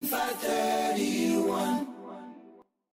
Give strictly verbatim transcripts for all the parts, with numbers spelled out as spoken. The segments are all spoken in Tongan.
Five thirty-one.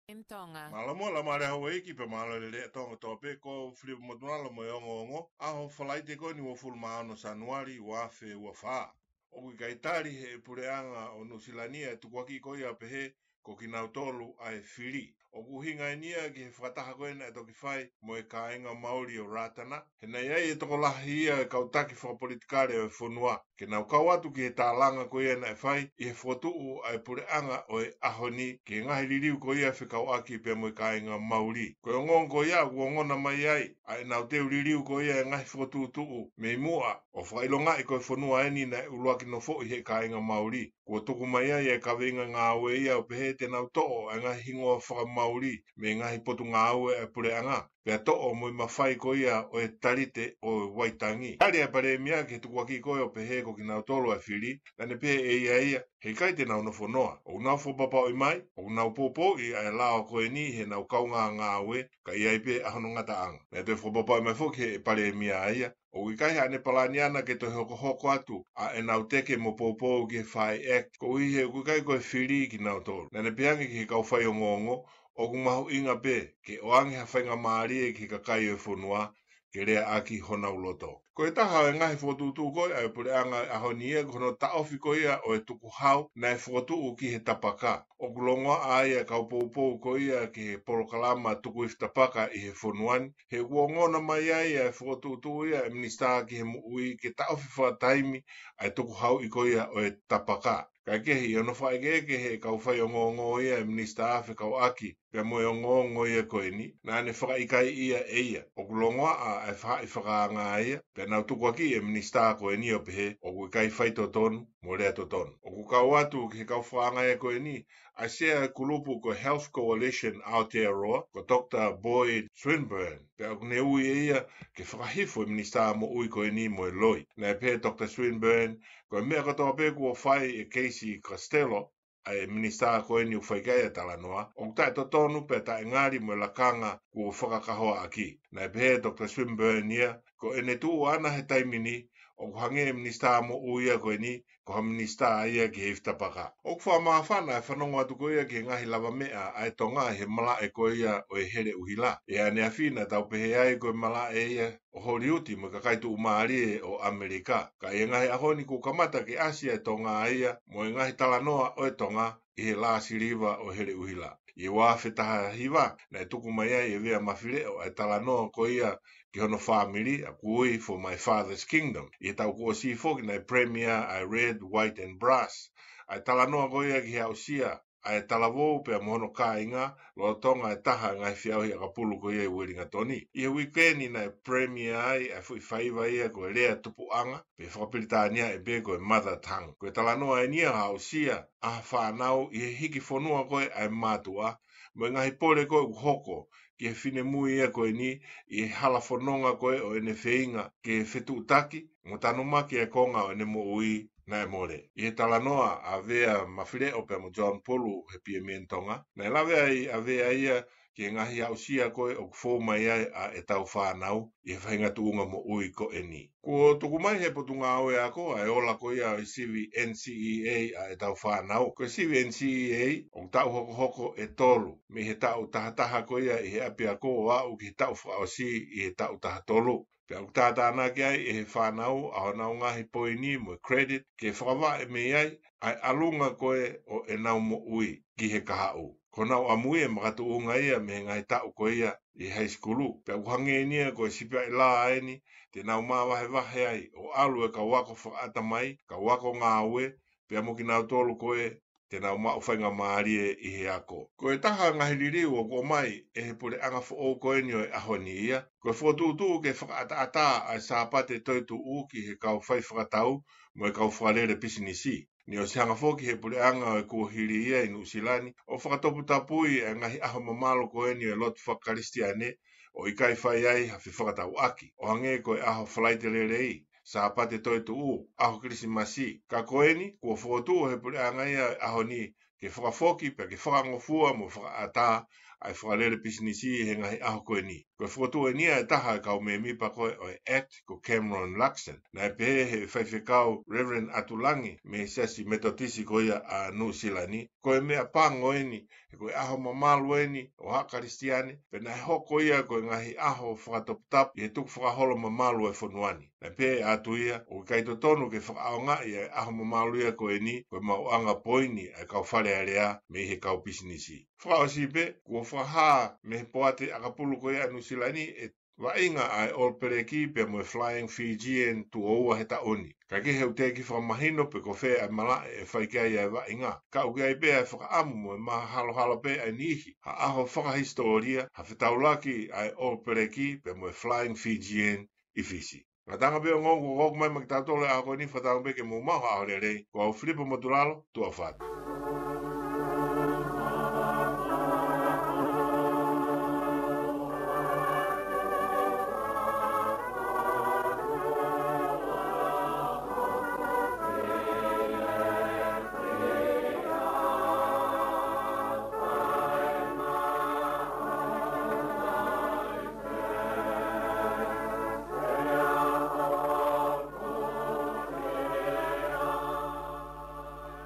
M Tonga. Mālō mo e Laumālie Houʻeiki pea mālō e lelei ʻa Tonga kotoa pē, ko Filipa Motunalo mo e ongoongo, ʻaho Falaite ko eni uofulu mā ono Sānuali, ua afe ua fā. ʻOku ʻikai tali ʻe he puleʻanga ʻo Nuʻusila ni e tukuakiʻi ko ia ʻo pehē ko kinautolu ʻa e fili. ʻOku ʻuhinga eni ia ki he fakataha ko ē naʻe toki fai mo e kāinga Mauli ʻo Ratana, he naʻe ʻi ai e tokolahi ia e kau taki fakapolitikale ʻo e fonua ke nau kau atu ki he tālanga ko ia naʻe fai ʻi he fokotuʻu ʻa e puleʻanga ʻo e ʻaho ni ki he ngaahi liliu ko ia fekauʻaki pea mo e kāinga Mauli. Ko e ongoongo ko ia ʻoku ongona mai ai ʻa ʻenau teu liliu ko ia e ngaahi fokotuʻutuʻu mei muʻa, ʻo fakaʻilongaʻi ko e fonua eni naʻe ʻuluaki nofoʻi ʻe he kāinga Mauli. Kuo tuku mai ai e kaveinga ngāue ia ʻo pehē te nau toʻo e ngaahi hingoa faka-Mauli mei he ngaahi potungāue ʻa e puleʻanga, pea toʻo mo e mafai ko ia ʻo e Talite ʻo Waitangi. Tali ʻe he Palēmia ki he tukuakiʻi ko ē ʻo pehē ko kinautolu ʻa e fili, naʻa ne pehē ʻe ia ia, he ʻikai te nau nofo noa. ʻOku nau fakapapauʻi mai, ʻoku nau poupouʻi ʻa e lao ko eni heʻenau kaungāngāue, ka ʻi ai pē ʻa hono ngataʻanga. Naʻe toe fakapapauʻi mai foki ʻe he Palēmia ia, ʻoku ʻikai haʻane palani ʻana ke toe hokohoko atu ʻa ʻenau teke mo poupou ki he Fire Act, koeʻuhi he ʻoku ʻikai ko e fili kinautolu. Naʻa ne pehē ange ki he kau faiongoongo, ʻoku mahuʻinga pē ke ʻoange ha faingamālie ki he kakai ʻo e fonua ke leaʻaki honau loto. Ko e taha ʻo e ngaahi fokotuʻutuʻu ko ē ʻa e puleʻanga ʻo e ʻaho ni ia ko hono taʻofi ko ia ʻo e tukuhau naʻe fokotuʻu ki he tapaka. ʻOku longoaʻa ai ʻa e kau poupou ko ia ki he polokalama tuku ifi tapaka ʻi he fonua ni, he kuo ongona mai ai ʻa e fokotuʻutuʻu ia ʻa e Minisitā ki he Moʻui ke taʻofi fakataimi ʻa e tukuhauʻi ko ia ʻo e tapaka. Kaekehe, ʻi hono fakaʻekeʻeke ʻe he kau faiongoongo ia ʻa e Minisitā fekauʻaki pea mo e ongoongo ia ko eni, naʻa ne fakaʻikaiʻi ia ʻe ia. ʻOku longoaʻa ʻa e faʻahi fakaanga ia, pea nau tukuakiʻi e Minisitā ko eni ʻo pehē ʻoku ʻikai faitotonu mo lea totonu. ʻOku kau atu ki he kau fakaanga ia ko eni ʻa e Sea ʻo e kulupu ko e Health Coalition Aotearoa, ko Doctor Boyd Swinburn, pea ʻoku ne ui ʻe ia ke fakahifo e Minisitā Moʻui ko eni mo e loi. Naʻe pehē ʻe Doctor Swinburn, ko e meʻa kotoa pē kuo fai ʻe Casey Costello, ʻa e Minisitā ko eni ʻoku fai ki ai ʻa e talanoa, ʻoku taʻetotonu pea taʻengali mo e lakanga kuo fakakahoaʻaki. Naʻe pehē ʻe Doctor Swinburn ia, ko ʻene tuʻu ʻana he taimi ni, ʻoku hangē e Minisitā Moʻui ia ko eni ko ha minisitā ia ki he ifi tapaka. ʻOku fakamāfana e fanongo atu ko ia ki he ngaahi lavameʻa ʻa e Tonga ʻi he malaʻe ko ia ʻo e Heleʻuhila. ʻI ʻaneafi naʻa tau pehē ai ko e malaʻe ia ʻo Holiuti mo e kakai tuʻumālie ʻo ʻAmelika. Ka ʻi he ngaahi ʻaho ni kuo kamata ke ʻasi ʻa e Tonga ia mo e ngaahi talanoa ʻo e Tonga ʻi he lā siliva ʻo e Heleʻuhila. ʻI he ua afe taha hiva, naʻe tuku mai ai ʻe Vea Mafileʻo ʻa e talanoa ko ia ki hono fāmili, ʻa ia ʻoku ui For My Father's Kingdom. ʻI he taʻu kuo ʻosi foki naʻe premiere ʻa e Red, White and Brass, ʻa e talanoa ko ia ki he aʻusia ʻa e talavou pea mo hono kāinga lolotonga e taha e ngaahi feʻauhi ʻakapulu ko ia ʻi Uelingatoni. ʻI he uike ni naʻe premiere ai ʻa e foʻi faiva ia ko e Lea Tupuʻanga, pe fakapilitānia ʻe pē ko e Mother Tongue. Ko e talanoa eni ia ʻo e aʻusia ʻa ha fānau ʻi he hiki fonua ko ē ʻa e mātuʻa, mo e ngaahi pole ko ē ʻoku hoko ki he finemui ia ko eni ʻi he hala fononga ko ē ʻo ʻene feinga ke fetuʻutaki mo tanumaki e konga ʻo ʻene moʻui naʻe mole. ʻI he talanoa ʻa Vea Mafileʻo pea mo John Pulu he Piemieni Tonga, naʻe lave ai ʻa Vea ia ki he ngaahi aʻusia ko ē ʻoku fou mai ai ʻa ʻetau fānau ʻi he faʻahinga tuʻunga moʻui ko eni. Kuo tuku mai ʻe he Potungāue Ako ʻa e ola ko ia ʻo e sivi N C E A ʻa ʻetau fānau. Ko e sivi N C E A ʻoku taʻu hokohoko ʻe tolu, mei he taʻu taha taha ko ia ʻi he ʻapiako ʻo aʻu ki he taʻu fakaʻosi ʻi he taʻu taha tolu. Pea ʻoku tātānaki ai ʻe he fānau ʻa honau ngaahi poini mo e credit ke fakavaʻe mei ai ʻa e ʻalunga ko ē ʻo ʻenau moʻui ki he kahaʻu. Ko honau ʻamui e makatuʻunga ia mei he ngaahi taʻu ko ia ʻi high school. Pea ʻoku hangē eni ia ko e sipi ʻa e lā eni te nau māvahevahe ai ʻo ʻalu e kau ako fakaʻatamai, kau ako ngāue, pea mo kinautolu ko ē te nau maʻu faingamālie ʻi he ako. Ko e taha e ngaahi liliu ʻoku ʻomai ʻe he puleʻanga foʻou ko eni ʻo e ʻaho ni ia, ko e fokotuʻutuʻu ke fakaʻataʻatā ʻa e Sāpate Toetuʻu ki he kau fai fakatau mo e kau fakalele pisinisi. Naʻe ʻosi hanga foki ʻe he puleʻanga ʻo e kuohili ia ʻi Nuʻusila ni ʻo fakatoputapui ʻa e ngaahi ʻaho mamalu ko eni ʻo e lotu fakakalisitiane ʻo ʻikai fai ai ha fefakatauʻaki, ʻo hangē ko e ʻaho Falaite Lelei, Sāpate Toetuʻu, ʻaho Kilisimasi. Ka ko eni, kuo fokotuʻu ʻe he puleʻanga ia ʻo e ʻaho ni ke fakafoki pea ke fakangofua mo fakaʻatā ʻa e fakalele pisinisi he ngaahi ʻaho ko eni. Ko e fokotuʻu eni ia ʻe taha ʻo e kau mēmipa ko ē ʻo e ACT, ko Cameron Luxon. Naʻe pehē ʻe he faifekau Reverend ʻAtulangi mei he Siasi Metotisi ko ia ʻa Nuʻusila ni, ko e meʻapango eni, he ko e ʻaho mamalu eni ʻo haʻa Kalisitiane, pea naʻe hoko ia ko e ngaahi ʻaho fakatoputapu ʻi he tukufakaholo mamalu ʻo e fonua ni. Naʻe pehē atu ia, ʻoku ʻikai totonu ke fakaʻaongaʻi ʻa e ʻaho mamalu ia ko eni ko e maʻuʻanga poini ʻa e kau fale alea mei he kau pisinisi. Fakaʻosi pē, kuo fakahā mei he poate ʻakapulu ko ia ʻa Nuʻusila ni ʻe vaʻinga ʻa e All Black pea mo e Flying Fijian tuʻo ua he taʻu ni. Ka ʻoku ʻikai ke u teʻeki fakamahino pe ko fē ʻa e malaʻe ʻe fai ki ai ʻa e vaʻinga. Ka ʻoku ʻi ai pē ʻa e fakaʻamu mo e mahalohalo pē ʻa e niʻihi ha ʻaho fakahisitōlia, ha fetaulaki ʻa e All Black pea mo e Flying Fijian ʻi Fisi. Ngataʻanga pē ʻo e ongoongo kuo ʻoatu mai maʻa kitautolu he ʻaho ko eni, fakatauange pē ke mou maʻu ha ʻaho lelei. Ko au Filipo Motulalo, tuʻa ʻofa atu.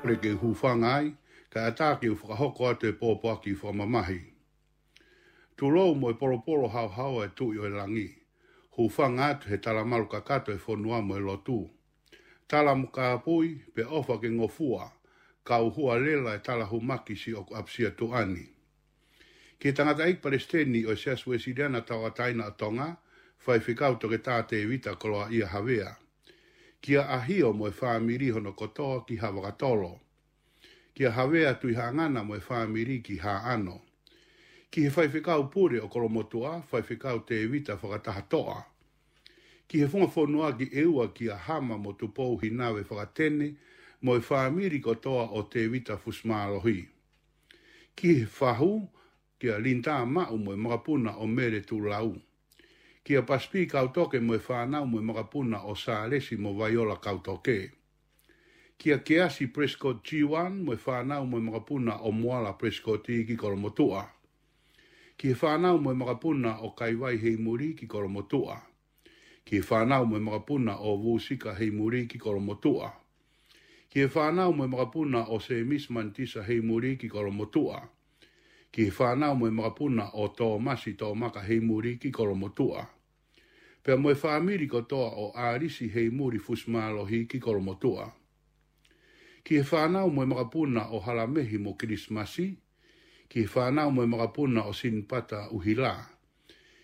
Kole ke u hūfanga ai, kae ʻatā ke u fakahoko atu e pōpoaki fakamamahi. Tulou mo e polopolo haohaoa ʻa e Tuʻi ʻo e langi. Hūfanga atu he talamalu kakato ʻo e fonua mo e lotu. Tala mo kāpui, pea ʻofa ke ngofua, kau hualela e talahumaki siʻoku ʻapisia tuʻa ni. Ki he tangataʻeiki palesiteni ʻo e Siasi Uēsiliana Tauʻatāina ʻo Tonga, Faifekau Toketā Tēvita Koloaʻia Havea. Kia ʻAhio mo e fāmili hono kotoa ki Havakatolo. Kia Havea Tuʻihaʻangana mo e fāmili ki Haʻano. Ki he Faifekau Pule ʻo Kolomotuʻa, Faifekau Tēvita Fakatahatoʻa. Ki he Funga Fonua ki ʻEua, kia Hama mo Tupou Hinave Fakatene mo e fāmili kotoa ʻo Tēvita Fusimālohi. Ki he Fahu, kia Linitā Maʻu mo e makapuna ʻo Mele Tulau. Kia Pasipi Kautoke mo e fānau mo e makapuna ʻo Sālesi mo Vaiola Kautoke. Kia Keasi Prescott Jiwan mo e fānau mo e makapuna ʻo Moala Prescott ki Kolomotuʻa. Ki he fānau mo e makapuna ʻo Kaivai Heimuli ki Kolomotuʻa. Ki he fānau mo e makapuna ʻo Vusika Heimuli ki Kolomotuʻa. Ki he fānau mo e makapuna ʻo Sēmisi Manitisa Heimuli ki Kolomotuʻa. Ki he fānau mo e makapuna ʻo Tōmasi Tōmaka Heimuli ki Kolomotuʻa. Pea mo e fāmili kotoa ʻo ʻAlisi Heimuli Fusimālohi ki Kolomotuʻa. Ki he fānau mo e makapuna ʻo Halamehi mo Kilisimasi. Ki he fānau mo e makapuna ʻo Sinipata ʻUhila.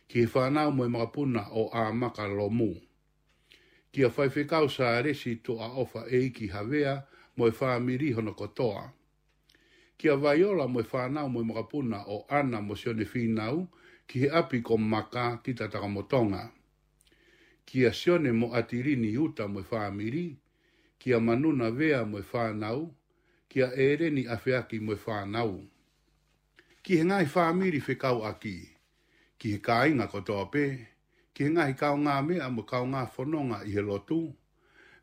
Ki he fānau mo e makapuna ʻo ʻAmaka Lomu. Kia Faifekau Sālesi Tuʻaʻofa ʻEiki Havea mo e fāmili hono kotoa. Kia Vaiola mo e fānau mo e makapuna ʻo ʻAna mo Sione Fīnau ki he ʻapi ko Maka ki Tatakamotonga. Kia Sione mo ʻAtilini Uta mo e fāmili. Kia Manuna Vea mo e fānau. Kia ʻEleni ʻAfeaki mo e fānau. Ki he ngaahi fāmili fekauʻaki. Ki he kāinga kotoa pē. Ki he ngaahi kaungāmeʻa mo e kaungāfononga ʻi he lotu.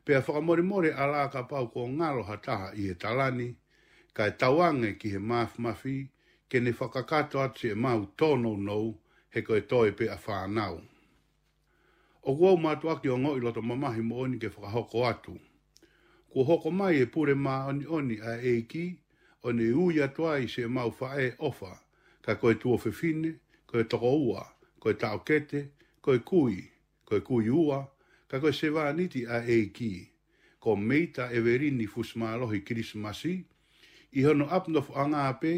Pea fakamolemole ʻalā kapau kuo ngalo ha taha ʻi he tala ni, kae tauange ki he māfimafi, ke ne fakakakato atu siʻemau tōnounou, he ko e toe pē ʻa fānau. ʻOku ou mātuʻaki ongoʻi loto mamahi moʻoni ke fakahoko atu. Kuo hoko mai e pule māʻoniʻoni ʻa e ʻEiki, ʻo ne ui atu ai siʻemau faʻē ʻofa, ka ko e tuofefine, ko e tokoua, ko e taʻokete, ko e kui, ko e kui ua, ka ko e sevāniti ʻa e ʻEiki. Ko Meita ʻEvelini Fusimālohi Kilisimasi, ʻi hono ʻapi nofoʻanga pē,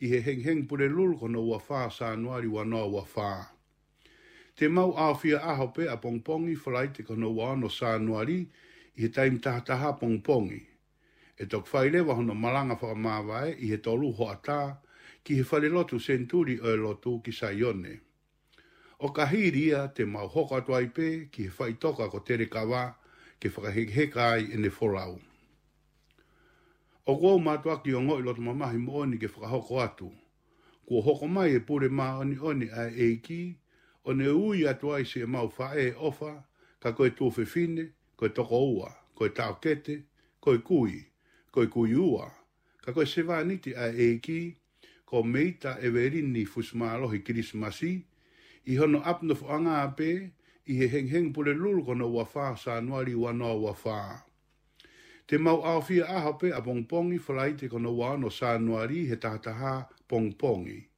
ʻi he hengihengi Pulelulu ko hono ua fā Sānuali ua noa ua fā. Te mau ʻaofia ʻaho pē ʻapongipongi Falaite ko hono ua ono Sānuali ʻi he taimi taha taha pongipongi. ʻE toki fai leva hono malanga fakamāvae ʻi he tolu hoʻatā ki he falelotu Senituli ʻo e Lotu ki Saione. ʻO ka hili ia te mau hoko atu ai pē ki he faʻitoka ko Telekava ke fakahekeheka ai ʻene folau. ʻOku ou mātuʻaki ongoʻi loto mamahi moʻoni ke fakahoko atu. Kuo hoko mai e pule māʻoniʻoni ʻa e ʻEiki, ʻo ne ui atu ai siʻemau faʻē ʻofa, ka ko e tuofefine, ko e tokoua, ko e taʻokete, ko e kui, ko e kui ua, Ka ko e sevāniti ʻa e ʻEiki ko Meita ʻEvelini Fusimālohi Kilisimasi, ʻi hono ʻapi nofoʻanga pē, ʻi he hengihengi Pulelulu ko hono ua fā Sānuali ua noa ua fā. Te mau ʻaofia ʻaho pē ʻapongipongi, Falaite ko hono ua ono Sānuali he taha taha pongipongi.